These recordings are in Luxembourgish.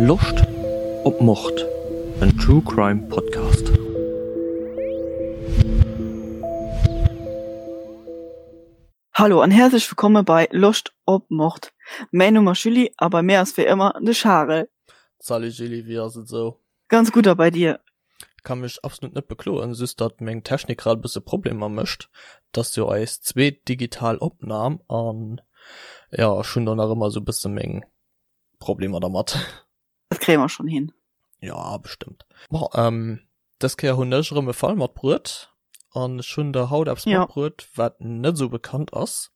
Loscht op Mord? En True Crime Podcast. Hallo an häerzlech wëllkomme bei Loscht op Mord. Mäin Numm ass Julie a bei mir ass wéi ëmmer de Charel. Salut Julie, wéi ass et esou? Ganz gutt a bei dir? Kann mech absolut net bekloen, just datt meng Technik grad e bësse Problemer mécht. Et ass jo eis zweet digital Opnahm an jo, ech hunn do nach ëmmer esou bësse meng Problemer dermat. Dat kréie mer schonn hin. Jo, bestëmmt. Bon, ähm, dës Kéier hunn ech erëm e Fall matbruet an ech hunn der haut eppes Ja. matbruet, wat net esou bekannt ass.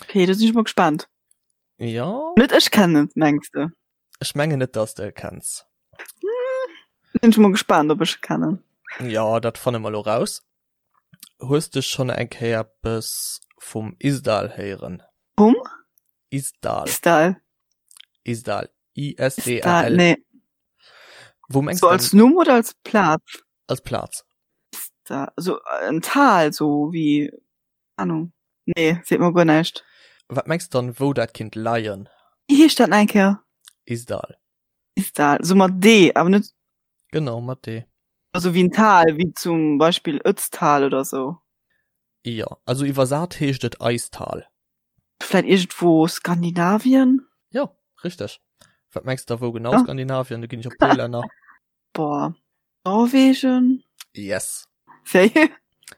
Okay, do sinn ech mol gespaant. Jo. Net ech kennen et, mengs de? Ech mengen net, dass de e kenns. Sinn ech mol gespaant, ob ech e kennen. Jo, dat fanne mer elo raus. Hues de schonn eng Kéier eppes vum Isdal héieren? Vum? Isdal. Isdal. Isdal. I-S-D-A-L. Nee. Wou mengs So du als Numm oder als Plaz? Als Plaz. Isdal. So en Tal, so wéi, Ahnung. Nee, seet mer guer näischt. Wat mengs de dann, wou dat kinnt leien? Wéi heescht dat nach eng Kéier? Isdal. Isdal. So mat D, awer net. Genau, mat D. Also wéi en Tal, wéi zum Beispill Ötztal oder sou. Jo, also iwwersat heescht et Eistal. Vläit iergendwou Skandinavien? Jo, richteg. Wat mengs de da wou genau Ja. Skandinavien? Do ginn ech op puer Länner. Boah, Norwegen? Yes. Sérieux?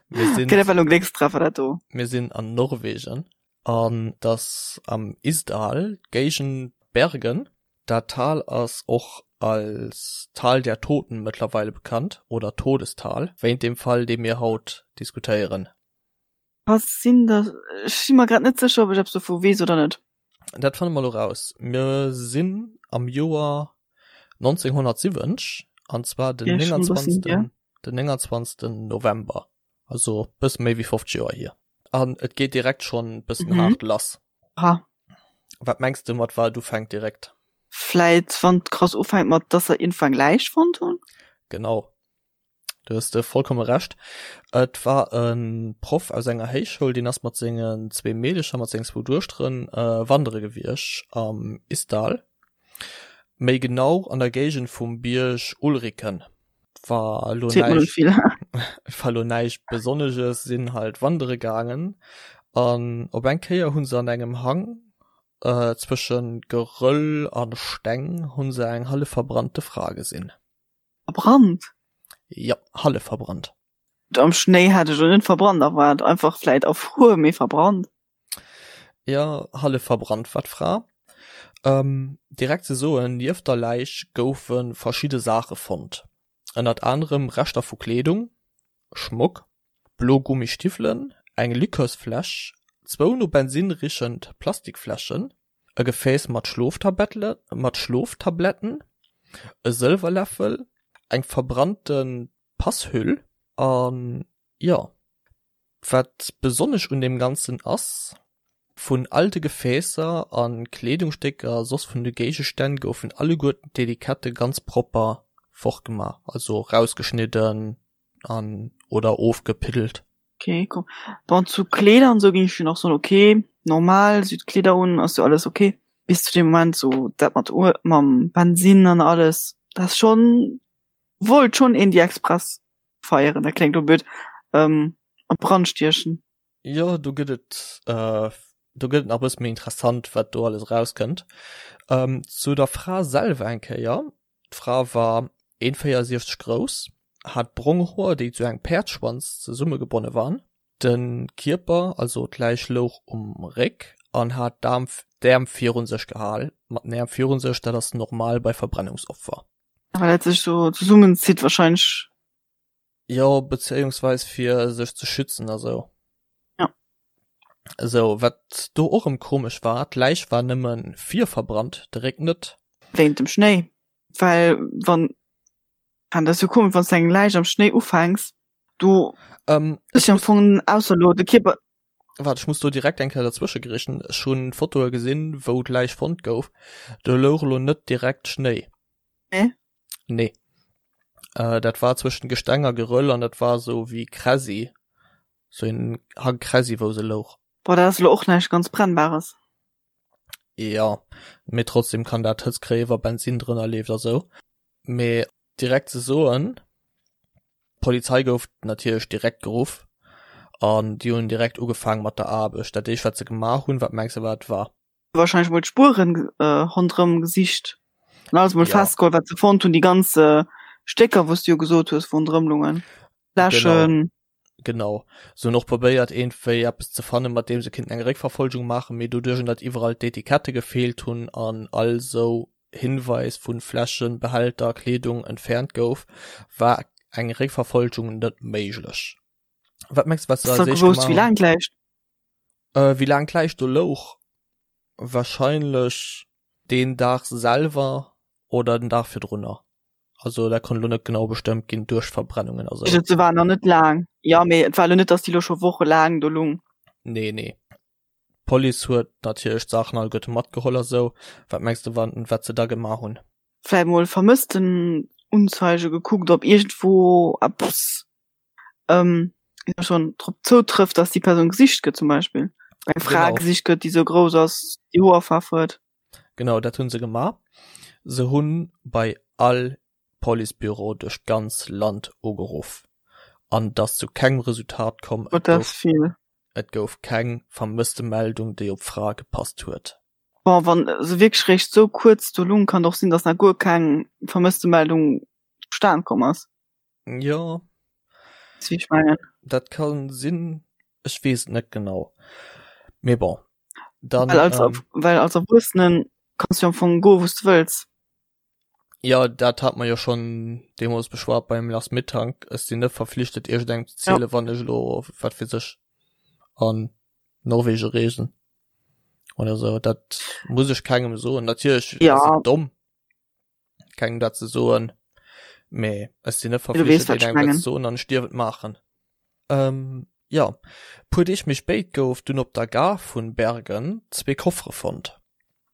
Mir sinn, Okay, dat war lo en Gléckstreffer, dat do. mir sinn an Norwegen an dass am Isdal, d'Géigend Bergen. Dat Tal ass och als Tal der Toten mëttlerweile bekannt oder Todestal, wéint dem Fall, dee mir haut diskutéieren. Was sinn da, ech si mer grad net sécher, ob ech eppes dovu weess oder net. Dat fanne mer elo raus. Mir sinn am Joer 1970, an zwar den Ja, schon e bëssen 29. hier. Den 29. November, also bësse méi wéi 50 Joer hier. An et geet direkt schonn bëssen Mhm. haart lass. Aha. Wat mengs de mat wat et ufänkt direkt? Vläit wann et krass ufänkt mat, dass se iergendwou eng Läich fonnt hunn? Genau. Du hues de vollkomme Recht. Et war e Proff aus enger Héichschoul, deen ass mat sengen zwee Meedecher, mat sengen zwou Duechteren wandere gewiescht am Isdal, méi genau an der Géigend vum Bierg Ulriken. War elo näischt, war elo näischt Besonneges, sinn halt wandere gaangen an op eng Kéier hu se an engem Hang zwësche Geröll a Steng hu se eng hallef verbrannte Fra gesinn. Verbrannt? Jo, hallef verbrannt. Am Schnéi hat ech elo net verbrannt erwaart, einfach vläit erfruer, mee verbrannt. Jo, hallef verbrannt war d'Fra. Direkt ze soen, nieft der Läich goufe verschidde Saache fonnt, ënnert anerem Reschter vu Kleedung, Schmock, blo Gummistiwwelen, eng Likörsfläsch, zwou no Bensinn richend Plastikfläschen, e Gefääss mat Schloftabletten, e Sëlwerläffel, eng verbrannte Passhüll an jo. Wat besonnesch un deem Ganzen ass, Vun all de Gefäässer a Kleedungsstécker a soss vun de Géigestänn goufen alleguerten d'Etikette ganz propper fortgemaach, also rausgeschnidden an oder ofgepiddelt. Okay, cool. Bon, zu Kleeder an sou ging ech jo nach soen, okay, normal, si huet Kleeder un, ass jo alles okay. Bis zu dem Moment sou dat mat Uel, mam Bensinn an alles, dat ass schonn, wollt schonn een déi Express feieren, dat kléngt lo blöd, ähm, an Brand stiechen. Jo, do gëtt et, do gëtt et nach e bësse méi interessant, wat do alles erauskënnt. Zu der Fra selwer eng Kéier, D'Fra war 1,64 grouss, hat brong Hoer, déi zu engem Päerdsschwanz zesummegebonne waren. De Kierper, also d'Läich louch um Réck an hat d'Äerm virun sech gehal. Mat den Äerm virun sech, dat ass normal bei Verbrennungsopfer. Well dat sech sou zesummenzitt wahrscheinlech. Jo, bezéiungsweis fir sech ze schützen a sou. Ja. Sou, wat do och rëm komesch war, d'Läich war nëmme vir verbrannt, de Réck net. Wéint dem Schnéi, well wann, an dat ass jo komesch, wann s de eng Läich am Schnéi ufänks, do Ähm, ass jo am Fong ausser elo de Kierper. Waart, ech muss do direkt eng Kéier derzwësche grätschen. Ech hunn Fotoe gesinn, wou d'Läich fonnt gouf. Do louch elo net direkt Schnéi. Nee? Nee. Äh, dat war zwëschen Gesteng a Geröll an dat war sou wéi Kräsi. Sou een Hang Kräsi, wou se louch. Boah, dat ass elo och näischt ganz Brennbares. Jo, mee trotzdem kann dat Hëtzt kréien, wa Bensinn drënner leeft a sou. Mee direkt ze soen, d'Polizei gouf natierlech direkt geruff an déi hunn direkt ugefaang mat der Aarbecht. Dat éischt wat se gemaach hunn, wat mengs de wat et war? Wahrscheinlech mol d'Spueren ronderëm gesicht an alles mol festgeholl wat se fonnt hunn, déi ganz Stécker wou s du jo gesot hues wou ronderëm lungen, Fläschen. Genau. Se hunn och probéiert iergendwéi eppes ze fannen, mat deem se kinnten eng Réckverfolgung maachen, mee doduerch datt iwwerall d'Etikette gefeelt hunn an all sou Hinweis vu Fläschen, Behälter, Kleedung entfernt gouf, war eng Réckverfolgung net méiglech. Wat mengs de wat se als éischt gemaach hunn? Wéi laang d'Läich do louch? Wahrscheinlech deen Dag selwer oder den Dag virdrunner. Also dat konnt elo net genau bestëmmt ginn duerch Verbrennungen a sou. Se war nach net laang. Jo, mee et war elo net, datt déi elo scho wochelaang do lung. Nee, nee. D'Police huet natierlech d'Saachen alleguerte matgeholl a sou. Wat mengs de, wat se da gemaach hunn? Vläicht mol Vermësstenunzeige gekuckt, ob iergendwou eppes ähm, schon drop zoutrëfft, dass déi Persoun gesicht gëtt zum Beispill. Eng Fra genau. gesicht gëtt, déi sou grouss ass, déi Hoerfaarf huet. Genau, dat hunn se gemaach. Se hunn bei all Policebüro duerch d'ganz Land ugeruff an et ass zu kengem Resultat komm. Et gouf, vill. Et gouf keng Vermësstemeldung, déi op d'Fra gepasst huet. Bon, wann se wierklech réischt sou kuerz do lung, kann et och sinn, dass nach guer keng Vermësstemeldung zustan komm ass. Jo. Wéi ech mengen. Dat kann sinn, ech weess et net genau. Mee bon, dann. Well als, ähm, well als Erwuessenen kanns du am Fong goen, wou s du wëlls. Jo, dat hat mer jo schonn deemools beschwat beim Lars Mittank. Ech sinn net verflichtet, iergendengem ze zielen, ja. wann ech elo, wat weess ech, an Norwegen reesen oder sou. Dat muss ech kengem soen. Natierlech ja. ass et domm. kengem dat ze soen, mee ech sinn net verflichtet engem dat ze soen an ech dierf et maachen. Ähm, jo, puer Deeg méi spéit gouf dunn op der Gare vun Bergen zwee Koffere fonnt.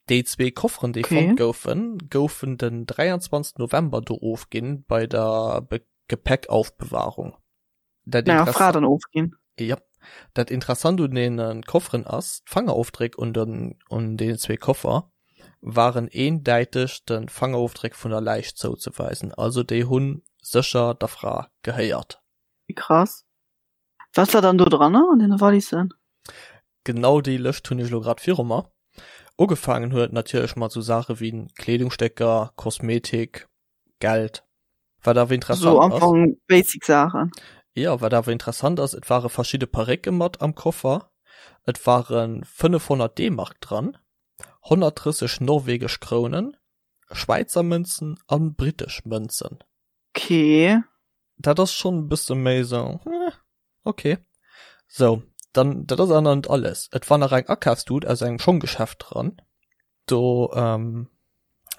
Déi zwee Kofferen déi okay. fonnt goufen, goufen den 23 November do ofginn bei der Be Gepäckaufbewahrung. Dat Naja, Fra dann ofginn. Ja. Dat Interessant un den Kofferen ass, d'Fangerofdréck un den un deenen zwee Koffer waren eendäiteg de Fangerofdréck vun der Läich zouzeweisen. Also déi hu sécher der Fra gehéiert. Wéi krass. Wat war dann do dranner an deene Wallissen? Genau déi Lëscht hunn ech elo grad viru mer. Ugefaangen huet et natierlech mat sou Saache wéi Kleedungsstécker, Kosmetik, Geld. Wat awer interessant so am Fong basic Saachen. Jo, wat awer interessant ass, et ware verschidde Parécke mat am Koffer, et ware 500 D-Mark dran, 130 norwegesch Krounen, Schwäizer Mënzen a brittesch Mënzen. Okay. Dat ass schonn e bësse méi sou, hm, okay. Sou, dann, dat ass awer nach net alles. Et war nach eng Akafstut aus engem Schonggeschäft dran. Do ähm,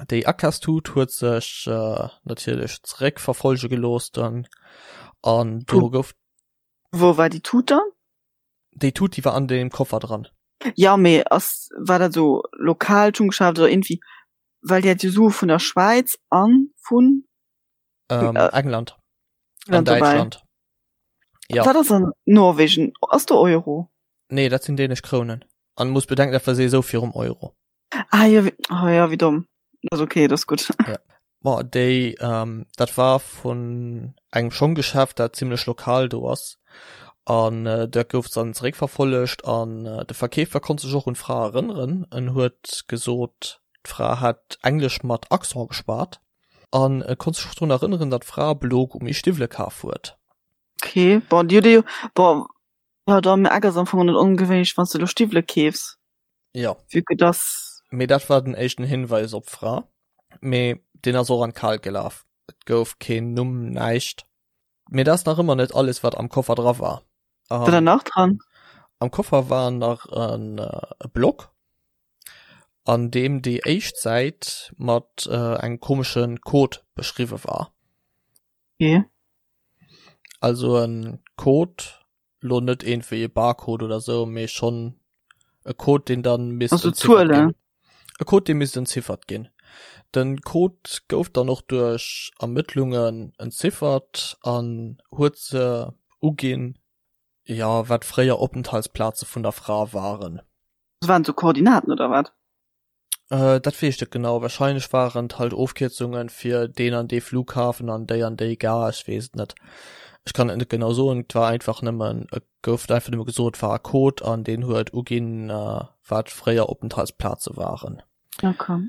déi Akafstut huet sech äh, natierlech zeréckverfolge gelooss dann an do gouf. Wou war déi Tut dann? Déi Tut, déi war an deem Koffer dran. Ja, mee ass, war dat sou lokaalt Schunggeschäft oder irgendwie, well déi hat jo Sue vun der Schwäiz an vun. Ähm, äh, England. An Däitschland. Ja. Wat ass an Norwegen? Ass do Euro? Nee, dat sinn dänesch Krounen. An muss bedenken, dat war sowieso virum Euro. Ah ja, wie, oh, ja, wie domm. Das ist okay, das ist gut. Ja. Boah, déi, ähm, dat war vun engem Schonggeschäft, dat zimmlech lokal do ass. An äh, dat gouf dann zeréckverfollegt an äh, de Verkeefer konnt sech och un d'Fra erënneren. En huet gesot, d'Fra hätt Englesch mat Accent geschwat. An e konnt sech och drun erënneren, datt d'Fra blo Gummistiwwele kaf huet. Okay, bon, déi huet ee jo, bon, jo, da mee Eck ass am Fong och net ongewéinlech, wann s de elo Stiwwele keefs. Jo. Vue que dass. Mee dat war den éischten Hinweis op d'Fra. Mee deen ass och an d'Kalt gelaf. Et gouf keen Numm, näischt. Mee dat ass nach ëmmer net alles, wat am Koffer dra war. War da nach dran? Am Koffer war nach en e Block, an deem déi éischt Säit mat engem komesche Code beschriwwe war. Okay. Also en Code, lo net iergendwéi e Barcode oder sou, mee schonn e Code, deen dann misst Also entziffert Zuelen? ginn. E Code, dee misst entziffert ginn. Den Code gouf dann och duerch Ermëttlungen entziffert an huet se uginn, jo, wat fréier Openthaltsplaze vun der Fra waren. Das waren sou Koordinaten oder wat? Äh, dat weess ech net genau. Wahrscheinlech waren et halt Ofkierzungen fir deen an dee Flughafen an déi an déi Gare, ech weess et net. Ech kann et net genau soen, et war einfach nëmmen, et gouf einfach nëmme gesot, et war e Code an deen huet uginn, wat fréier Openthaltsplaze waren. Okay.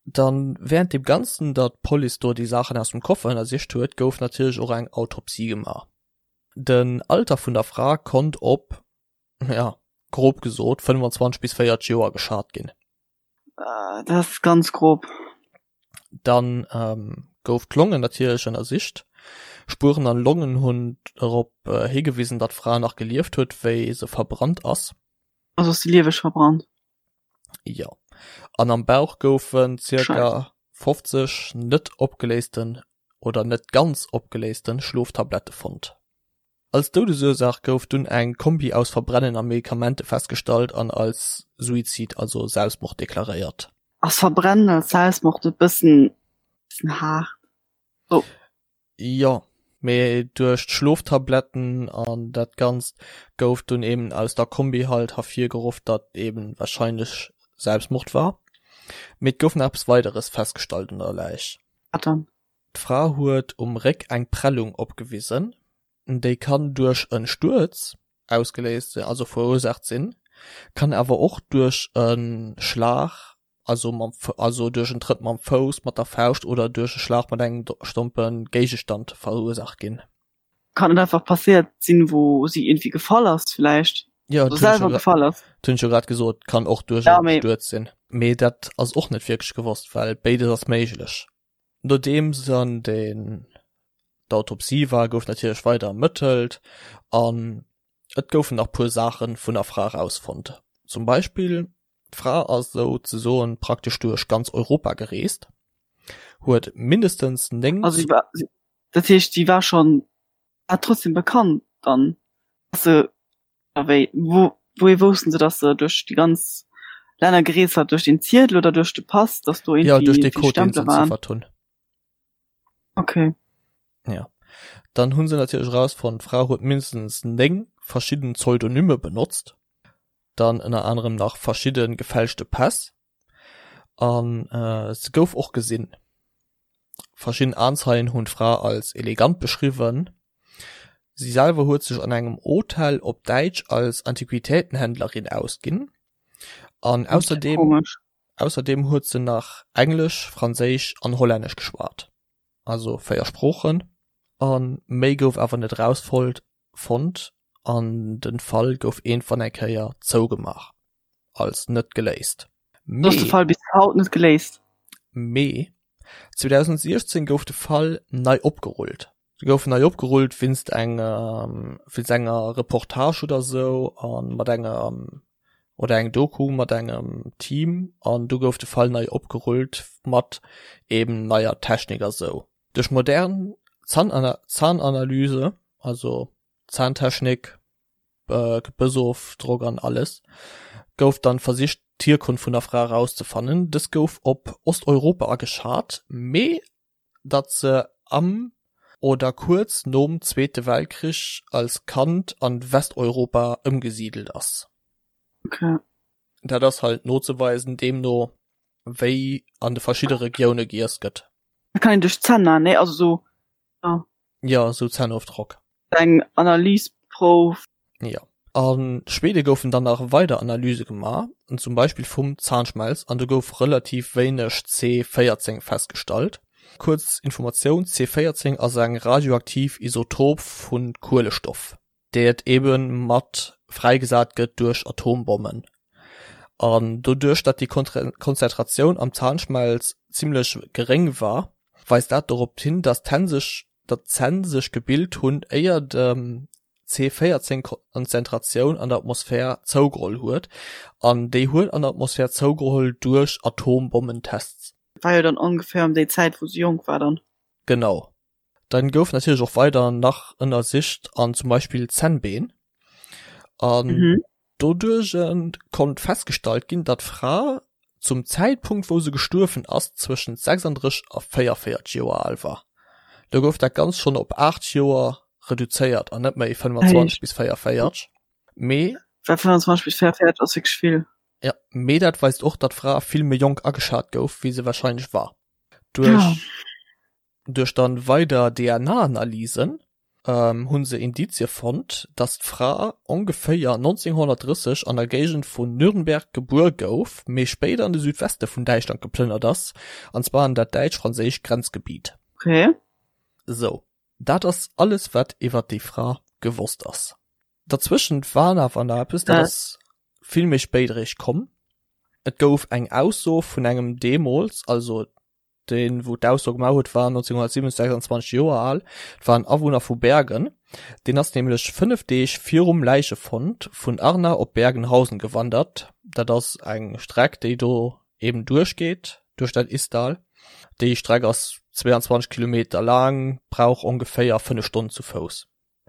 Dann während deem Ganzen, datt d'Police do déi Saachen aus dem Koffer ënnersicht huet, gouf natierlech och eng Autopsie gemaach. Den Alter vun der Fra konnt op, ja, grob gesot 25 bis 40 Joer geschat ginn. Dat ass ganz grob. Dann ähm, gouf d'Longen natierlech ënnersicht. Spueren an Longen hunn dorop äh, higewisen, datt d'Fra nach gelieft huet, wéi se verbrannt ass. Also ass se lieweg verbrannt? Jo. An am Bauch goufen zirka 50 net opgeléisten oder net ganz opgeléisten Schloftablette fonnt. Als Doudesursaach gouf dunn eng Kombi aus Verbrennen a Medikamente festgestallt an als Suizid, also Selbstmord deklaréiert. Ass Verbrennen als Selbstmord net bëssen haart? Oh. Jo, mee duerch d'Schloftabletten an dat Ganzt gouf dunn eben aus der Kombi halt hervirgeruff, datt eben wahrscheinlech Selbstmord war. Mee et gouf nach eppes Weideres festgestallt un der Läich. Wat dann? D'Fra huet um Réck eng Prellung opgewisen, déi kann duerch e Stuerz ausgeléist sinn, also verursaacht sinn, kann awer och duerch e Schlag, also mam also duerch en Trëtt mam Fouss, mat der Fauscht oder duerch e Schlag mat engem stompe Géigestand verursaacht ginn. Kann et einfach passéiert sinn, wou si iergendwéi gefall ass villäicht? Jo, dat hunn ech jo gefall ass. Dat hunn ech jo grad gesot, kann och duerch e Stuerz sinn. Mee dat ass och net wierklech gewosst, well béides ass méiglech. Nodeems dann den d'Autopsie war, gouf natierlech weider ermëttelt an et goufen nach puer Saache vun der Fra erausfonnt. Zum Beispill, d'Fra ass sou ze soen praktesch duerch ganz Europa gereest, huet mindestens 9. Also si war, dat heescht si war schonn, war trotzdem bekannt dann, dass se A wéi, wou, wouhier woussten se, dass se duerch déi ganz Länner gereest war? Duerch den Ziedel oder duerch de Pass, dass do Ja, duerch irgendwie dee vill Code, deen se Stempele waren? entziffert hunn. Okay. Ja. Dann hunn se natierlech erausfonnt, d'Fra huet mindestens 9 verschidden Pseudonyme benotzt. Dann ënner anerem nach verschidde gefälschte Päss. An se gouf och gesinn. Verschidden Aenzeien hunn d'Fra als elegant beschriwwen. Si selwer huet sech an engem Hotel op Däitsch als Antiquitätenhändlerin ausginn. An ausserdeem ausserdeem huet se nach Englesch, Franséisch an Hollännesch geschwat, also 4 Sproochen. A méi gouf awer net erausfonnt fonnt an den Fall gouf iergendwann eng Kéier zougemaach als net geléist. Mee. Ass de Fall bis haut net geléist? Mee 2016 gouf de Fall nei opgerullt. Se gouf nei opgerullt wéinst engem, wéinst enger Reportage oder sou a mat engem, oder eng Doku mat engem Team an du gouf de Fall nei opgerullt mat eben neier Technik a sou. Duerch modern Zahnanalyse, also Zahntechnik, Gebëssofdrock an alles, gouf dann versicht d'Hierkonft vun der Fra erauszefannen. Dës gouf op Osteuropa ageschat, mee datt se am oder kuerz nom Zweete Weltkrich als Kand an Westeuropa ëmgesidelt ass. Okay. Dat ass halt nozeweisen, deemno wéi an de verschidde Regioune giess gëtt. Dat kann een duerch d'Zänn man, nee? Also sou, ja. Ja, sou Zännofdrock. Eng Analysprouf. Ja. A Schwede goufen dann nach weider Analyse gemaach, zum Beispill vum Zahnschmelz, an do gouf relativ wéineg C14 festgestallt. Kuerz Informatioun, C14 ass eng radioaktiv Isotop vu Kuelestoff. déi et ebe mat fräigesat gëtt duerch Atombommen. An doduerch datt déi Konzentratioun am Zahnschmelz zimmlech geréng war, weist dat dorop hin, datt d'Hänn sech datt d'Zänn sech gebilt hunn éier dem C14 Konzentratioun an der Atmosphär zougeholl huet. An déi huet an der Atmosphär zougeholl duerch Atombommentests. War jo dann ongeféier ëm déi Zäit wou se jonk war dann. Genau. Dann gouf natierlech och weider nach ënnersicht an zum Beispill Zännbeen. An mhm. doduerch konnt festgestallt ginn, datt d'Fra zum Zäitpunkt wou se gestuerwen ass zwëschen 36 a 44 Joer al war. Do gouf dat Ganzt schonn op 8 Joer reduzéiert an net méi 25 bis 44. Mee 25 bis 44 ass wierklech vill. Ja, mee dat weist och, datt d'Fra vill méi jonk ageschat gouf, wéi se warscheinlech war. Duerch Ja. duerch dann weider DNA-Analysen ähm, hunn se Indizie fonnt, datt d'Fra ongeféier 1930 an der Géigend vun Nürnberg gebuer gouf, mee spéider an de Südweste vun Däitschland geplënnert ass, an zwar an dat däitsch-franséischt Grenzgebiet. Okay. Sou, dat ass alles wat iwwert déi Fra gewosst ass. Derzwëschent war awer nach eppes, dat ass vill méi spéit eréischt komm. Et gouf eng Ausso vun engem deemools, also deen wou d'Ausso gemaach huet war 1927 26 Joer al, et war en Awunner vu Bergen, deen ass nämlech 5 Deeg virum Läichefond vun Arna op Bergenhausen gewandert. Dat ass eng Streck déi do eben duerchgeet duerch dat Isdal. Déi Streck ass 22 Kilometer laang, brauch ongeféier 5 Stonnen zu Fouss.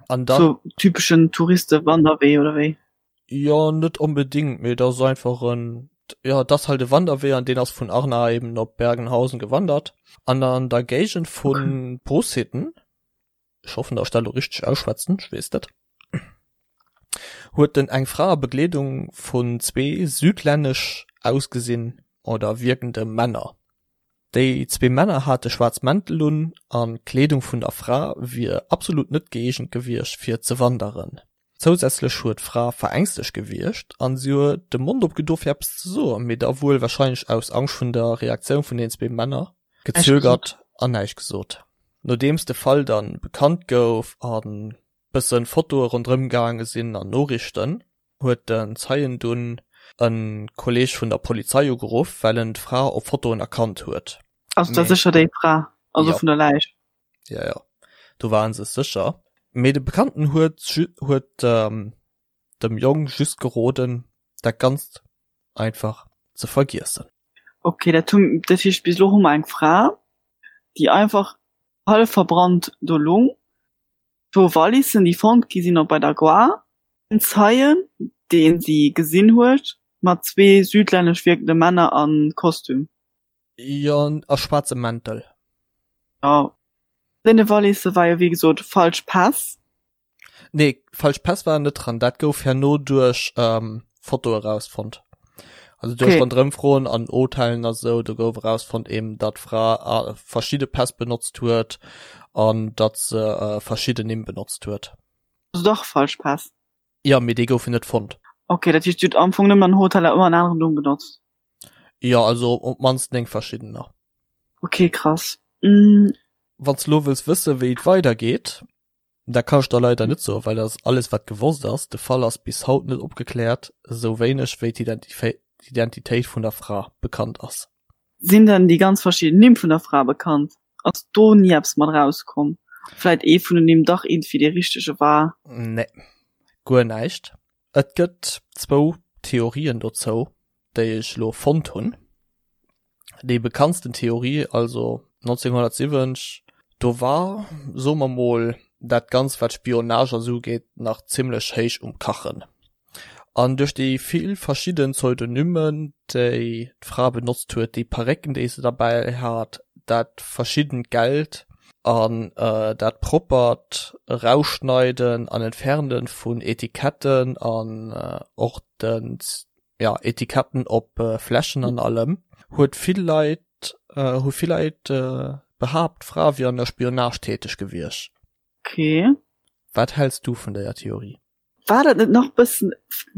An dann. So typeschen Touristewanderwee oder wéi? Jo, net onbedingt, mee et ass einfach en, jo, et ass halt e Wanderwee an deen ass vun Arna eben op Bergenhausen gewandert. An an der Géigend vu Okay. Brusshitten, ech hoffen, datt ech dat elo richteg ausschwätzen, ech weess net, huet en eng Fra a Begleedung vun zwee südlännesch ausgesinn oder wierkende Männer Déi zwee Männer hate schwaarz Mäntel un an d'Kleedung vun der Fra wier absolut net gëeegent gewiescht fir ze wanderen. Zousätzlech huet d'Fra verängstegt gewierkt an si huet de Mond opgedo fir eppes ze soen, mee da wuel warscheinlech aus Angscht vun der Reaktioun vun den zwee Männer gezögert an näischt gesot. Nodeems de Fall dann bekannt gouf an bëssen Fotoe ronderëm gaange sinn an Noriichten, huet den Zeien dunn e Kolleeg vun der Polizei ugeruff, well en d'Fra op Fotoen erkannt huet. Ass da sécher déi Fra, also Jo. vun der Läich? Jo, jo, do ware se sécher. Mee de Bekannten huet huet dem Jong just geroden, dat Ganzt einfach ze vergiessen. Ok, dat hu, dat heescht bis elo hu mer eng Fra, déi einfach hallef verbrannt do lung. Zwou Wallissen, déi fonnt gi sinn op bei der Gare, en Zeien, dee si gesinn huet, mat zwee südlännesch wierkende Männer a Kostüm. Jo, a schwaarze Mäntel. Jo, deene Wallisse war jo wéi gesot falsch Päss. Nee, falsch Päss waren net dran. Dat gouf herno duerch Fotoe rausfonnt. Also duerch Okay. Ronderëmfroen an Hotellen a sou, do gouf erausfonnt eben, datt d'Fra verschidde Päss benotzt huet an datt se verschidden Nimm benotzt huet. Also dach falsch Päss. Jo, mee déi goufen net fonnt. Okay, dat heescht, si huet am Fong nëmmen an Hoteller ëmmer en aneren Numm benotzt. Jo, also op d'mannst 9 verschiddener. Okay, krass. Mm. Wann s de lo wëlls wëssen, wéi et weidergeet, Dat kann ech der leider net soen, well dat ass alles wat gewosst ass. De Fall ass bis haut net opgekläert, esou wéineg wéi d'Identitéit vun der Fra bekannt ass. Sinn denn déi ganz verschidden Nimm vun der Fra bekannt? Ass do ni eppes mat erauskomm? Vläit ee vun den Nimm dach iergendwéi dee richtege war? Nee, guer näischt. Et gëtt zwou Theorien dozou, déi ech elo fonnt hunn. Déi bekanntsten Theorie, also 1970, do war, soe mer mol, dat Ganzt wat Spionage a sou ugeet nach zimmlech héich um Kachen. An duerch déi vill verschidden Pseudonymen, déi d'Fra benotzt huet, déi Parécken, déi se derbäi hat, dat verschiddent Geld an dat proppert Erausschneiden an Entferne vun Etiketten an och den ja, Etiketten op Fläschen an allem, huet vill Leit, hu vill Leit behaapt, d'Fra wier an der Spionage täteg gewiescht. Okay. Wat häls du vun déier Theorie? War dat net nach bëssen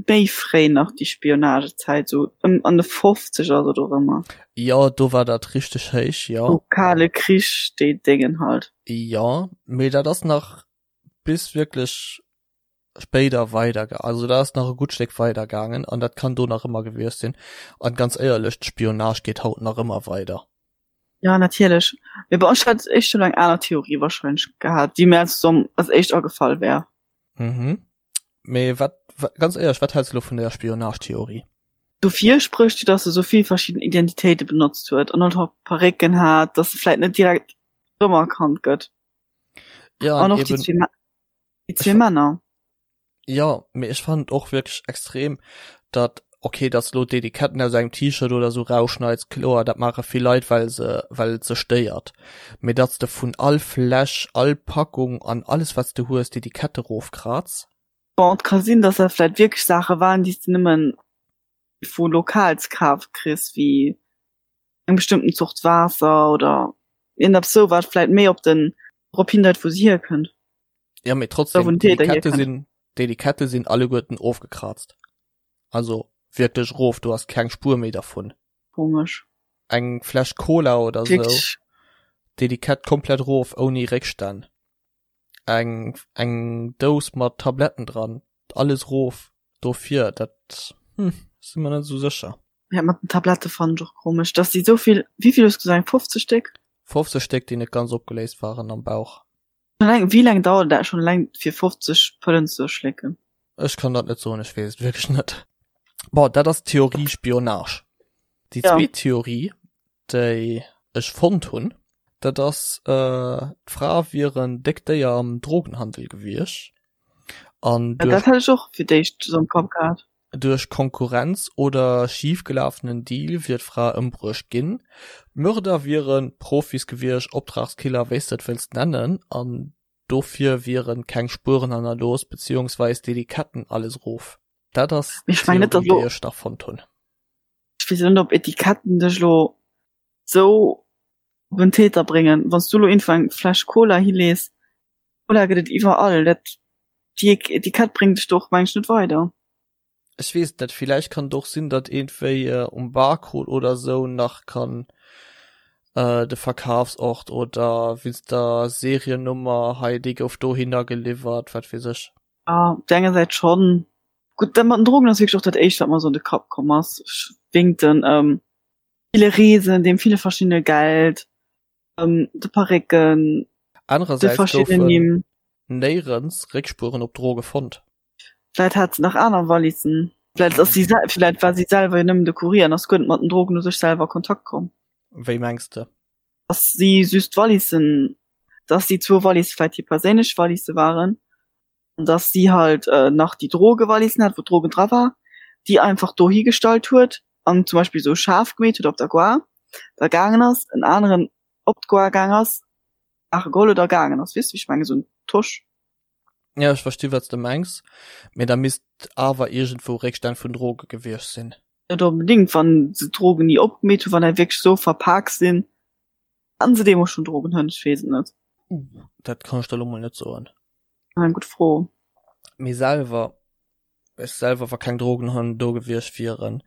méi fréi nach déi Spionagezäit, sou ëm an de Fofzeger oder dorëmmer? Jo, do war dat richteg héich, jo. Sou Kale Krich, déi Déngen halt. Jo, mee dat ass nach bis wierklech spéider weider ge also dat ass nach e gutt Stéck weider gaangen an dat kann do nach ëmmer gewiescht sinn. An ganz éierlech, d'Spionage geet haut nach ëmmer weider. Ja, natierlech. Mee bon, ech hätt éischter elo eng aner Theorie wahrscheinlech gehat, déi mir als als éischt agefall wär. Mhm. Mee wat, ganz éierlech, wat häls de elo vun der Spionage-Theorie? Dofir sprécht jo, dass se sou vill verschidden Identitéite benotzt huet an och Parécken hat, dass se vläit net direkt rëmerkannt gëtt. Ja, An an och déi eben zwee Déi zwee Männer. Jo, mee ech fannen et och wierklech extrem, datt, okay, datt s lo d'Etiketten aus engem T-Shirt oder sou rausschneids, kloer, dat maache vill Leit, well se, well et se stéiert, mee datt s de vun all Fläsch, all Packung an alles wat s de hues, d'Etikette rofkraz. Bon, et ka sinn, datt dat vläit wierklech Saache waren, déi s de nëmmen. vu lokal ze kafe kriss, wéi eng bestëmmten Zort Waasser oder iergendeppes sou, wat vläit méi op den drop hindeit, wou se hierkënnt. Ja, mee trotzdem, d'Etikette sinn, d'Etikette sinn alleguerten ofgekrazt. Also wierklech rof, du has keng Spuer méi dervun. Komesch. Eng Fläsch Cola oder sou, d'Etikett komplett rof, ouni Réckstänn. Eng eng Dous mat Tabletten dran, alles rof. Dofir, dat hm, si mer net esou sécher. Ja, mat den Tablette fannen ech och komesch, dass déi souvill, wéivill hues du gesot, eng 50 Stéck? 50 Stéck, déi net ganz opgeléist waren am Bauch. Schon eleng, wéi laang dauert dat schon eleng fir 50 Pëllen ze schlécken? Ech kann dat net soen, ech weess et wierklech net. Bon, dat ass d'Theorie Spionage. Déi Ja. zweet Theorie, déi ech fonnt hunn, dat ass, d'Fra wier en déckt Déier am Drogenhandel gewiescht an Ja, dat duerch, hat ech och fir d'éischt esou am Kapp gehat. duerch Konkurrenz oder schifgelafenen Deal wier d'Fra ëmbruecht ginn. D'Mörder wiere Profis gewiescht, Optragskiller, wéi s de et wëlls nennen, an dofir wiere keng Spueren hannerlooss, beziehungsweis d'Etiketten alles erof. Dat ass Mee ech mengen net, d'Theorie, datt déi ech nach fonnt hunn. Ech weess net, ob Etiketten dech elo sou op en Täter bréngen. Wann s du elo iergendwou eng Fläsch Cola hilees, Cola gëtt et iwwerall, dat déi Etikett bréngt dech do och meng ech net weider. Ech weess et net, villäicht kann et och sinn, datt iergendwéi um Barcode oder sou nach kann de Verkafsort oder wéinst der Seriennummer, hei déi gouf dohinner geliwwert, wat weess ech. Jo, op der enger Säit schonn. Gutt, dat mat den Drogen ass wierklech och dat éischt, wat mer sou an de Kapp komm ass, wéingt den ville Reesen, deem ville verschiddene Geld, de Parécken, de Anerersäits verschiddenen goufen Nimm. néierens Réckspueren op Droge fonnt. Vläit hat se nach aner Wallissen. Vläit ass si, vläit war si selwer jo nëmmen de Courier an ass guer net mat den Drogen u sech selwer a Kontakt komm. Wéi mengs de? Dass si just d'Wallissen, dass déi zwou Wallisse vläit hir perséinlech Wallisse waren an dass si halt nach déi Drogewallissen hat, wou d'Drogen dra war, déi einfach do higestallt huet an zum Beispill esou schaarf gemeet huet op der Gare, da gaangen ass, en aneren op d'Gare gaang ass, Saache geholl huet a gaangen ass. Weess de wéi ech mengen? Esou en Tosch. Ja, ech versti wat s de mengs, mee da misst awer iergendwou Réckstänn vun Droge gewiescht sinn. Net onbedéngt, wann se d'Drogen ni opgemeet hunn, wann der wierklech esou verpak sinn, haten se deemools schonn Drogenhënn? Ech weess et net. Uh, dat kann ech der elo mol net soen. Eng gutt Fro. Mee selwer, ech selwer, wa keng Drogenhënn do gewiescht wieren,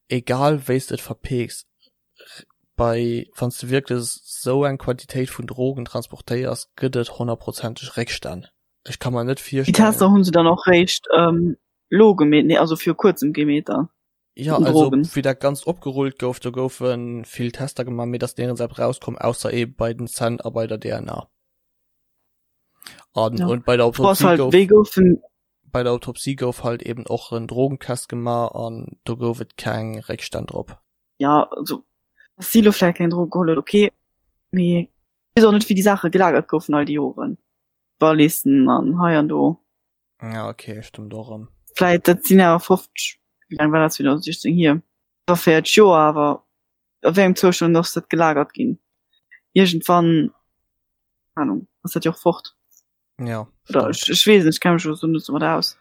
egal wéi s de et verpeeks, bei, wann s de wierklech esou eng Quantitéit vun Drogen transportéiers, gëtt et honnertprozenteg Réckstänn. Ech ka mer net Déi Tester virstellen. hunn se dann och réischt lo gemeet, nee also viru kuerzem gemeet dann Ja, den also Drogen. wéi dat Ganzt opgerullt gouf, do goufe vill Tester gemaach, mee et ass nirgends eppes rauskomm, ausser eebe bei den Zänn a bei der DNA. An Ja. und bei der D'Fro ass Autopsie halt, gouf wéi goufen bei der Autopsie gouf halt eben och en Drogentest gemaach an do gouf et keng Réckstänn drop. Ja, also dass si lo vläicht keng Droge geholl huet, okay, mee ech weess och net wéi déi Saache gelagert goufen all déi Joren. Wallissen an hei an do. Ja, okay, stëmmt och erëm. Vläit, dat sinn awer 50, wéi laang war dat 2016 hier? Iwwer 40 Joer, awer a wéi engem Zoustand ass dat gelagert ginn? Iergendwann, keng Ahnung, ass dat jo och fort. Ja, Oder stëmmt. ech, ech weess net, ech kenne mech elo sou net domat aus.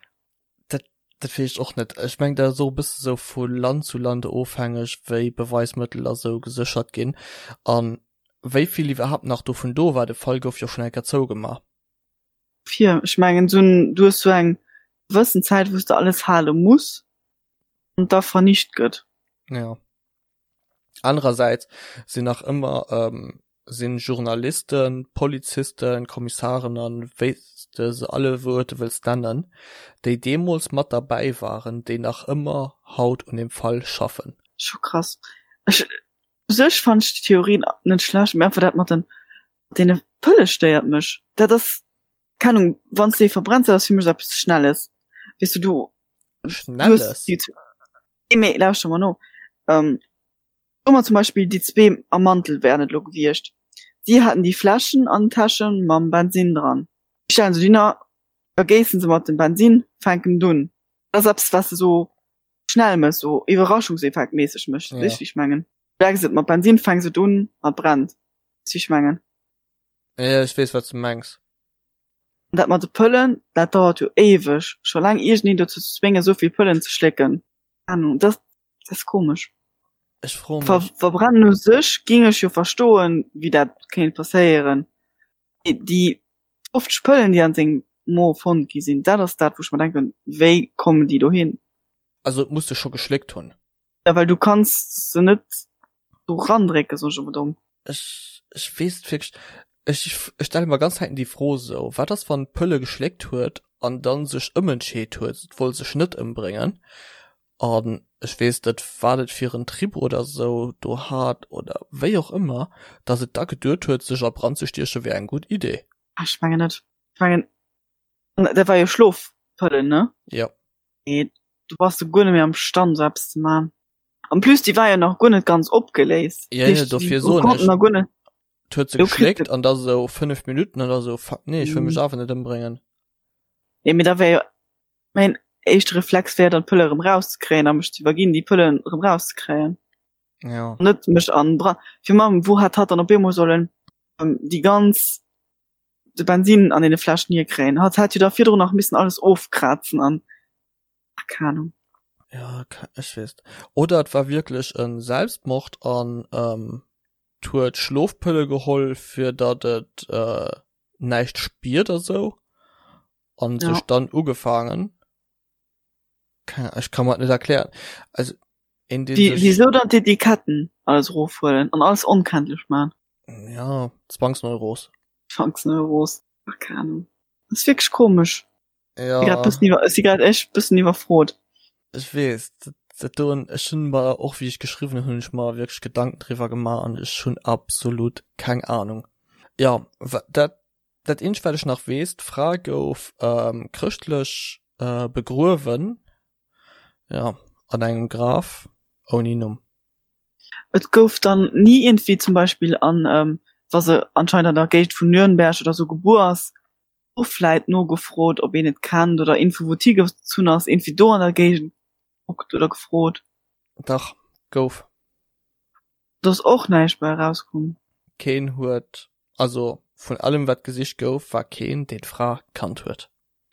Dat, dat weess ech och net. Ech meng, dat ass och e bësse sou vu Land zu Land ofhängeg, wéi Beweismëttel a sou geséchert ginn an wéi vill iwwerhaapt nach dovun do war. De Fall gouf jo schonn eng Kéier zougemaach. Fir, ech mengen, sou en, du hues sou eng gewëssen Zäit, wou s de alles hale muss an da vernicht gëtt. Ja. Anerersäits sinn nach ëmmer sinn Journalisten, Polizisten, Kommissaren an wéi s de se alleguerte wëlls nennen, déi deemools mat derbäi waren, déi nach ëmmer haut un deem Fall schaffen. Scho krass. Ech, u sech fannen ech déi Theorien net schlecht, mee einfach dat mat den, mat deene Pëlle stéiert mech. Dat ass, keng Ahnung, wann s de ee verbrenns, dat ass fir mech esou eppes Schnelles, weess du, du, du hues Schnelles? déi, nee, mee lauschter mer no, Soe mer zum Beispill, déi zwee am Mantel wären et elo gewiescht. Si haten déi Fläschen an den Täsche mam Bensinn dran. Déi stellen se dohinner, vergéissen se mat dem Bensinn, fänken et un. Dat ass eppes, wat s de esou schnell méchs, esou iwwerraschungseffektméisseg méchs. Weess wéi ech mengen? Du decks et mat Bensinn, fänks et un a et brennt. Weess wéi ech mengen? Jo, ech weess, wat s de mengs. An dat mat de Pëllen, dat dauert jo éiweg, scho laang iergendeen dozou ze zwéngen, esou vill Pëllen ze schlécken. Keng Ahnung, dat. Dat ass komesch. Ech froe Ver mech. Verbrennen u sech géing ech jo verstoen, wéi dat kéint passéieren. Mee déi 50 Pëllen, déi an sengem Mo fonnt gi sinn, dat ass dat, wou ech mer denken, wéi kommen déi dohin? Also et muss se scho geschléckt hunn. Ja, well du kanns se net do randrécken, soen ech emol domm. Ech, ech weess et wierklech, ech, ech stelle mer ganz Zäiten déi Fro esou, wat ass wann d'Pëlle geschléckt huet an dann sech ëmentscheet huet, et wollt sech net ëmbréngen an ech weess net wat et fir en Trip oder esou do hat oder wéi och ëmmer, datt et da geduet huet sech a Brand ze stieche wär eng gutt Idee. Ah, ech mengen net. Ech mengen, dat war jo Schlofpëllen, ne? Jo. Nee, du bass du guer net méi am Stand sou eppes ze man. En plus déi war jo nach guer net ganz opgeléist. Ja, ja, dofir soen ech. Nach guer net. Huet se geschléckt an da sou 5 Minuten oder sou fuck nee, ech wëll mech awer net ëmbréngen. Nee, mee da wär jo mäin éischte Reflex wär dann d'Pëlle erëm rauszekréien a mech ze iwwerginn déi Pëllen erëm rauszekréien. Ja. Net mech an Brand. Fir mam wou hätt hatt dann op eemol sollen déi ganz de Bensin an deene Fläschen hierkréien. Hatt hätt jo da virdrun nach missen alles ofkrazen an ach, keng Ahnung. Ja, ech weess. Oder et war wierklech e Selbstmord an ähm, huet Schlofpëlle geholl, fir datt et äh, näischt spiert a sou an ja. sech dann ugefaangen. Ech kann mer net erklären. Also in den Wie, wieso dann d'Etiketten alles rofhuelen an alles onkenntlech man? Ja, Zwangsneuros. Zwangsneuros. Ach, keine Ahnung. Das ist wirklich komisch. Ja. Ich grad bëssen iwwer, ech si grad echt bëssen iwwerfrot. Ech weess, dat, dat doen, ech hunn mer och wéi ech geschriwwen hunn, hunn ech mer wierklech Gedanken driwwer gemaach an ech hunn absolut keng Ahnung. Ja, dat, dat eenzegt wat ech nach weess, d'Fra gouf ähm, chrëschtlech äh, begruewen, ja, an engem Graf ouni Numm. Et gouf dann ni iergendwéi zum Beispill an, ähm, wa se anscheinend an der Géigend vun Nürnberg oder sou gebuer ass, och vläit nogefrot, ob een et kennt oder Info wou et higezunn ass, iergendwéi do an der Géigend gekuckt oder gefrot. Dach, gouf. Do ass och näischt bei erauskomm. Keen huet, also vun allem wat gesicht gouf, war keen, deen d'Fra kannt huet.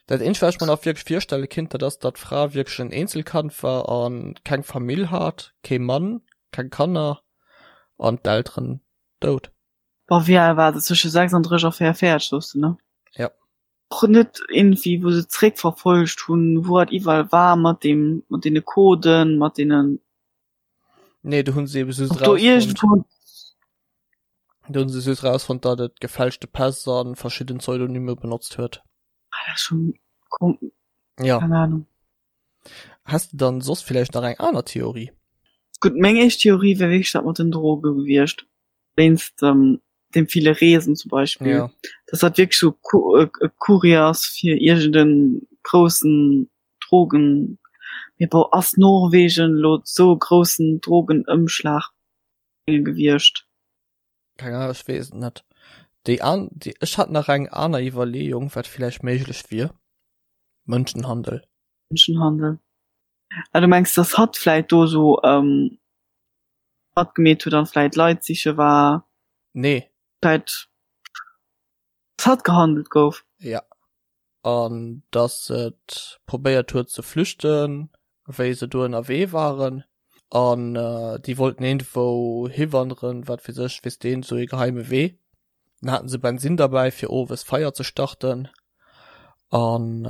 Dat eenzegt wat ech mer nach wierklech virstelle kinnt, dat ass, datt d'Fra wierklech en Eenzelkand war a keng Famill hat, kee Mann, keng Kanner an d'Elteren dout. Boah, wéi al war se? Zwësche 36 a 44, soos de, ne? Ja. Och net iergendwéi, wou se zréckverfollegt hunn, wou hatt iwwerall war mat deem, mat deene Coden, mat deenen. Nee, do hunn se ebe just Ob do rausfonnt, iergendwou. do hunn se just rausfonnt, datt et gefälschte Päss a verschidden Pseudonyme benotzt huet. Ah, dat ass schon kom. Ja. Keng Ahnung. Häss de dann soss villäicht nach eng aner Theorie? Gutt, meng éischt Theorie wär wierklech dat mat den Droge gewiescht, wéinst dem ville Reesen zum Beispill, Ja. dass dat wierklech sou e Courier ass fir iergend e groussen Drogen. Mee bon, ass Norwegen elo sou e groussen Drogenëmschlag gewiescht? Keng Ahnung, ech weess et net. Déi an, déi, ech hat nach eng aner Iwwerleeung, wat villäicht méiglech wier, Mënschenhandel. Mënschenhandel. Ah, du mengs, dass hatt vläit do sou ähm, matgemeet huet an vläit Leit siche war? Nee. Vläit, dass hatt gehandelt gouf? Ja. An dass et probéiert huet ze flüchten, wéi se do ënnerwee waren. An déi wollten iergendwou hiwanderen, wat weess ech, weess deen, sou ee geheime Wee. Dann haten se Bensin derbäi fir owes Feier ze starten an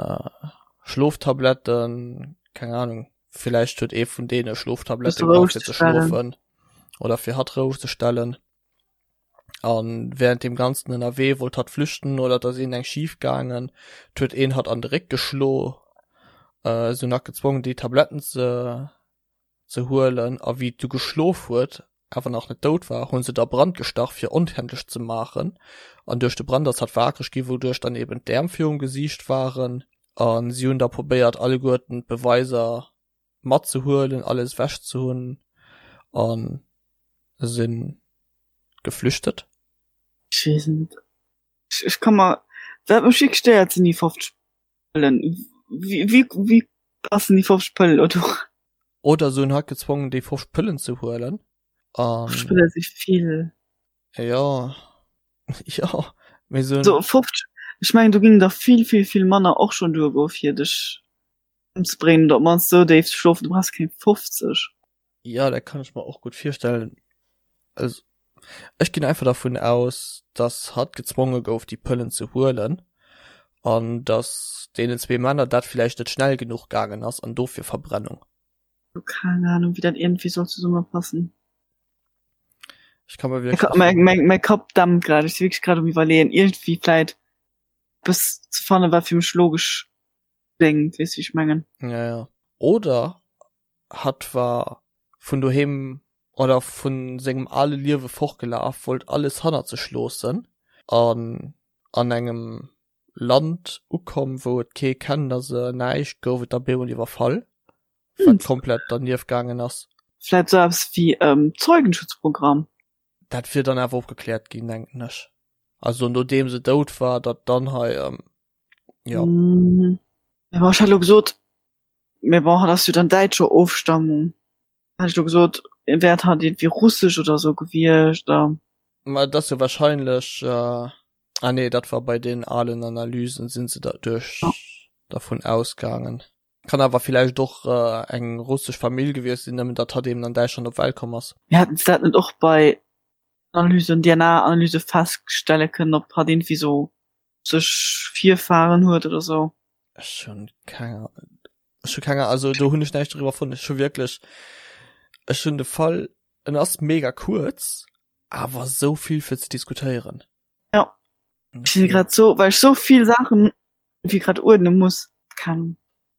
Schloftabletten, keng Ahnung, villäicht huet ee vun deene Schloftablette gebraucht fir ze schlofen oder fir hatt roueg ze stellen. An während deem ganzen ënnerwee wollt hatt flüchten oder et ass iergend eng schif gaangen, et huet een hatt an de Réck geschlo, se hunn hatt gezwongen déi Tabletten ze ze huelen a wéi et du geschlof huet, awer nach net dout war, hu se et a Brand gestach fir onkenntlech ze maachen an duerch de Brand ass hatt waakreg gi wouduerch dann eben d'Äerm virum Gesiicht waren a si hunn da probéiert alleguerten d'Beweiser matzehuelen, alles ewech ze hunn a sinn geflüchtet. Ech weess net. Ech ka mer, wat mech wierklech stéiert sinn déi 50 Pëllen. Wéi, wéi, wéi passen déi 50 Pëllen elo do? Oder se hunn hatt gezwongen déi 50 Pëllen ze huelen an. 50 Pëlle si vill. Jo, jo, mee se hunn. So 50, ech mengen do géingen der vill, vill, vill manner och schonn duergoe fir dech ëmzebréngen oder op d'mannst esou déif ze schlofen, du brauchs keng 50. Ja, dat kann ech mer och gutt virstellen. Also ech ginn einfach dervun aus, dass hatt gezwonge gouf déi Pëllen ze huelen an dass deenen zwee Männer dat villäicht net schnell genuch gaangen ass an dofir Verbrennung. Keng Ahnung wéi dat iergendwéi soll zesummepassen. Ech kann mer wierklech. Mäi, mäi, mäi Kapp dämpt grad, ech si wierklech grad um iwwerleeën iergendwéi vläit eppes ze fannen, wat fir mech logesch kléngt, weess wéi ech mengen? Ja, ja. Oder hatt war vun doheem oder vun sengem ale Liewe fortgelaf, wollt alles hannert sech loossen an an engem Land ukomm, wou et kee kennt a se näischt, gouf et da bemol iwwerfall, wat komplett dernieft gaangen ass. Vläit sou eppes wéi Zeugenschutzprogramm? Dat wier dann awer opgekläert ginn, denken ech. Also nodeem se dout war, datt dann hei, jo. Mee bon, ech hat elo gesot, mee bon, hatt ass jo dann däitscher Ofstammung. Hat ech elo gesot, wär hatt iergendwéi russesch oder sou gewiescht oder. Ma et ass jo wahrscheinlech, ah nee, dat war bei den alen Analysen, sinn se da duerch dervun ausgaangen. Kann awer villäicht och eng russesch Famill gewiescht sinn, nëmmen datt hatt eben an Däitschland op d'Welt komm ass. Mee haten se dat net och bei Analysen, DNA-Analyse feststelle kënnen, ob hatt iergendwéi sou sech Virfahren huet oder sou? Ech hunn keng Ech hu keng also do hunn ech näischt doriwwer fonnt. Ech hu wierklech ech hunn de Fall en ass mega kuerz, awer sou vill fir ze diskutéieren. Ja ech sinn grad sou well ech sou vill Saachen wéi grad uerdne muss. Keng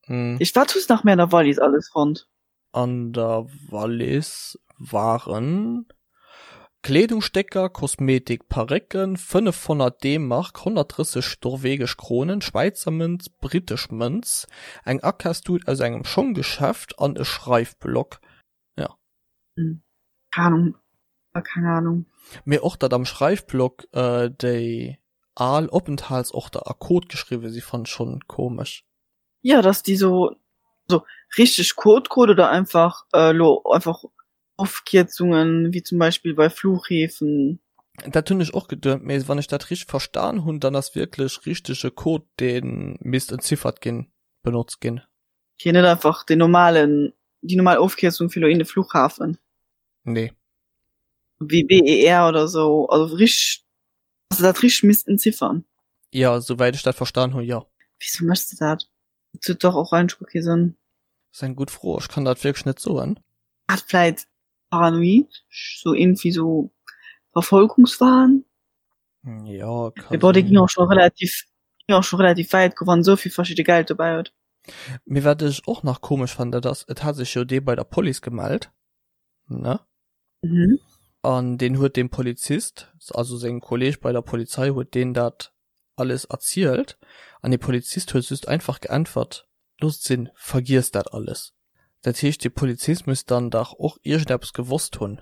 Mm. Ich wat hues nach méi an der Wallis alles fonnt? An der Wallis waren Kleedungsstécker, Kosmetik, Parécken, 500 D-Mark, 130 norwegesch Kronen, Schwäizer Mënz, brittesch Mënz, eng Akafstut aus engem Schonggeschäft an e Schreifblock. Ja. Keng Ahnung. Keng Ahnung. Mee och datt am Schreifblock déi al Openthaltsorter a Code geschriwwe si fannen ech schonn komesch. Jo, dass déi sou so richteg Code Code oder einfach elo einfach Ofkierzungen, wéi zum Beispill bei Flughäfen. Dat hunn ech och geduet, mee wann ech dat richteg verstan hunn, dann ass wierklech richtege Code, dee misst entziffert ginn, benotzt ginn. Okay, net einfach den normalen, déi normal Ofkierzung fir elo in de Flughafen. Nee. Wéi BER oder sou, also richteg, dass se dat richteg misst entziffern. Jo, souwäit ech dat verstan hunn, jo. Wieso méchs de dat? Dat huet dach och eigentlech guer kee Sënn. Ass eng gutt Fro, ech kann dat wierklech net soen. Hat vläit paranoid, sou iergendwéi sou Verfolgungswahn? Jo, ka Mee bon, dee ging och scho relativ, ging och scho relativ wäit goen, wann esou vill verschidde Geld dobäi huet. Mee wat ech och nach komesch fannen, dat ass, et hat sech jo dee bei der Police gemellt, ne? Mhm. An deen huet dem Polizist, also sengem Kolleg bei der Polizei, huet deen dat alles erzielt an dee Polizist huet just einfach geäntwert, Loosst sinn, vergiesst dat alles. Dat heescht, dee Polizist muss dann dach och iergendeppes gewosst hunn.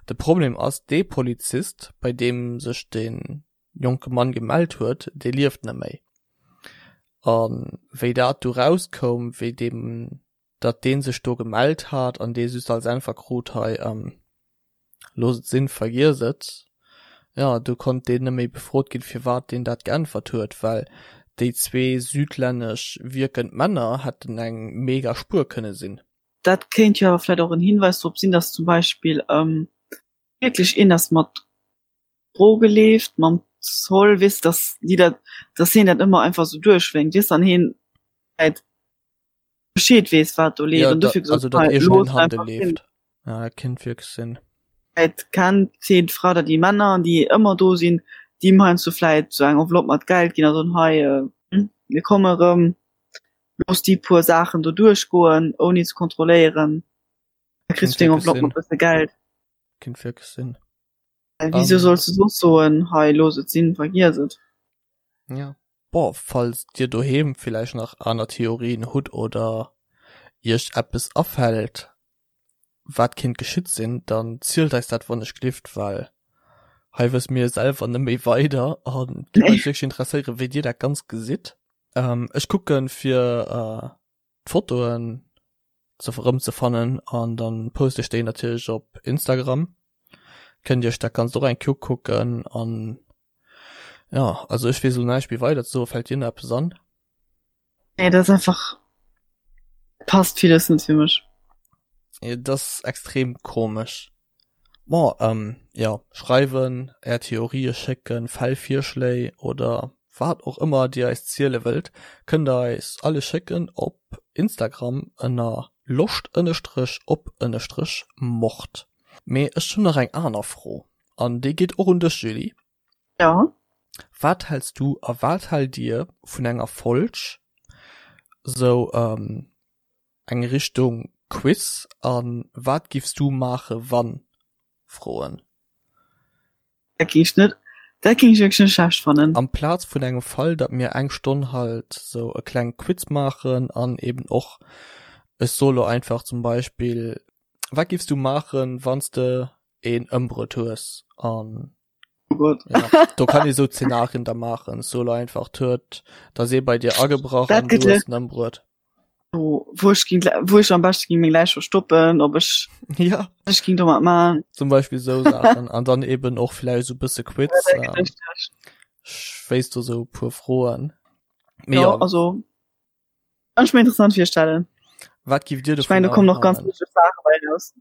De Problem ass, dee Polizist, bei deem sech dee jonke Mann gemellt huet, dee lieft net méi. A wéi dat du rauskoum, wéi deem datt dee sech do gemellt hat an dee just als Äntwer krut, hei looss et sinn, vergiess et, jo, du konnt deen net méi befrot ginn, firwat deen dat geäntwert huet, well déi zwee südlännesch wierkend Männer hätten eng mega Spuer kënne sinn. Dat kéint jo awer vläit och en Hinweis drop sinn, datt zum Beispill wierklech een ass mat Droge leeft, mam Zoll, weess, datt déi dat, datt hien dat ëmmer einfach esou duerchwénkt, weess, an hien vläit Bescheed weess wat do leeft Ja, an da, dofir gesot also dat hei iergendeen looss Handel einfach sinn. leeft. Ja, dat kinnt wierklech sinn. Vläit kennt hien d'Fra oder déi Männer déi ëmmer do sinn, déi him heiansdo vläit sou eng Enveloppe mat Geld ginn a soen hei mir komme rëm, looss déi puer Saachen do duerchgoen ouni ze kontrolléieren, da kriss Kinnt du deng wierklech Enveloppe sinn. mat bësse Geld. Kinnt wierklech sinn. Well wieso An solls du soss soen hei looss et sinn, vergiess et. Ja. Bon, falls dir doheem villäicht nach aner Theorien hutt oder iech eppes afält wat kinnt geschitt sinn, dann zielt eis dat wannechglift, well hei wësse mir selwer net méi weider an et géif eis wierklech interesséieren wéi dir dat Ganzt gesitt. Ech kucken fir d'Fotoen ze erëmzefannen an dann poste ech déi natierlech op Instagram. Kënnt dir iech dat Ganzt och eng Kéier ukucken an jo, also ech weess elo näischt méi weider ze soen. Fält dir nach eppes an? Nee, dat ass einfach, passt villes net fir mech. Et ass extrem komesch. Bon, ähm, jo, schreiwen, är Theorië schécken, Fäll, Virschléi oder wat och ëmmer dir eis ziele wëllt, kënnt der eis alles schécken op Instagram ënner loscht ënnestrech op ënnestrech mord. Mee ech hunn nach eng aner Fro an déi geet och un dech, Julie. Ja. Wat häls du a wat haalt dir vun enger Folg sou, ähm, eng Richtung Quiz an wat giffs du maache wann Froen. Dat géing ech net, dat géing ech wierklech net schlecht fannen. Amplaz vun engem Fall, datt mir eng Stonn halt sou e kleng Quiz maachen an eben och, ech soe lo einfach zum Beispill, wat giffs du maachen, wann s de een ëmbruet hues an Oh Gott. Ja, do kann ee sou Zenarien da maachen, ech soe lo einfach, d'huet, da ass ee bei dir agebrach Dat an du gëtt hues en ëmbruet. Wo, wou ech ging, wou ech am beschte ging meng Läich verstoppen, ob ech, Ja. ech ging domat man. Zum Beispill sou Saachen an dann eben och vläicht sou bësse Quiz. Ja, Ähm, ech wéisst do sou e puer Froen. Mee ja, ja, also kann ech mir interessant virstellen. wat giff dir Ich meine, da dovunner kommen noch ganz halen? lustig Sachen bei raus.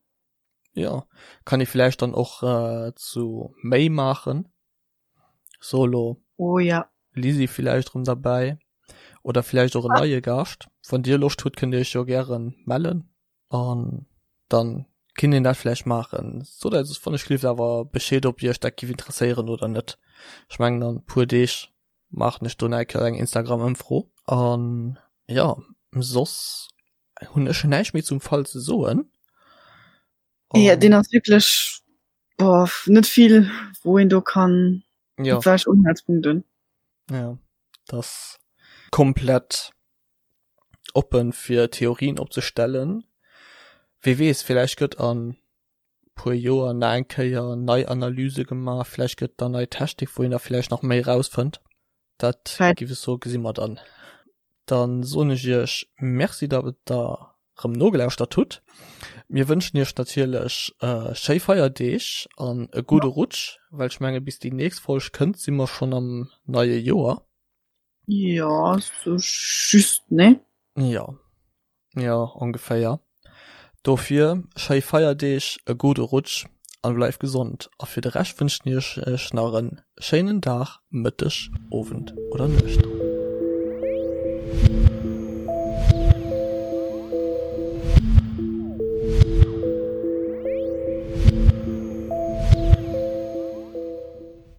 Ja, kann ee vläicht dann och äh, zu méi maachen. Solo. Oh ja. Lisi villäicht rëm derbäi oder villäicht och en neie Gaascht. Wann dir Loscht hutt, kënnt dir iech jo gären mellen an dann kinnt een dat villäicht maachen. Sot eis wann ech gelift awer Bescheed ob iech dat giff interesséieren oder net. Ech mengen an puer Deeg maachen ech do nach eng Kéier eng Instagram Ëmfro an jo soss hunn ech näischt méi zum Fall ze soen. Ja, deen ass wierklech, boah, net vill, wou een do kann ja. welch Unhaltspunkten. Ja, das komplett oppen fir Theorien opzestellen. Wie weess, vielleicht gëtt an puer Joer nach eng Kéier nei Analyse gemaach, vielleicht gëtt da nei Technik, wou een da vielleicht nach méi rausfënnt. Dat giff ech soen, gesi mer dann. Dann soen ech iech Merci, datt der rëm nogelauschtert hutt. Mir wënschen iech natierlech schéi Feierdeeg an e gudde Rutsch, well ech menge bis déi nächst Folg kënnt, si mer schonn am neie Joer. Jo, sou just, ne? Jo, jo, ongeféier. Dofir schéi Feierdeeg, e gudde Rutsch an bleift gesond. A fir de Rescht wënschen ech iech nach en schéinen Dag, Mëtteg, Owend oder Nuecht.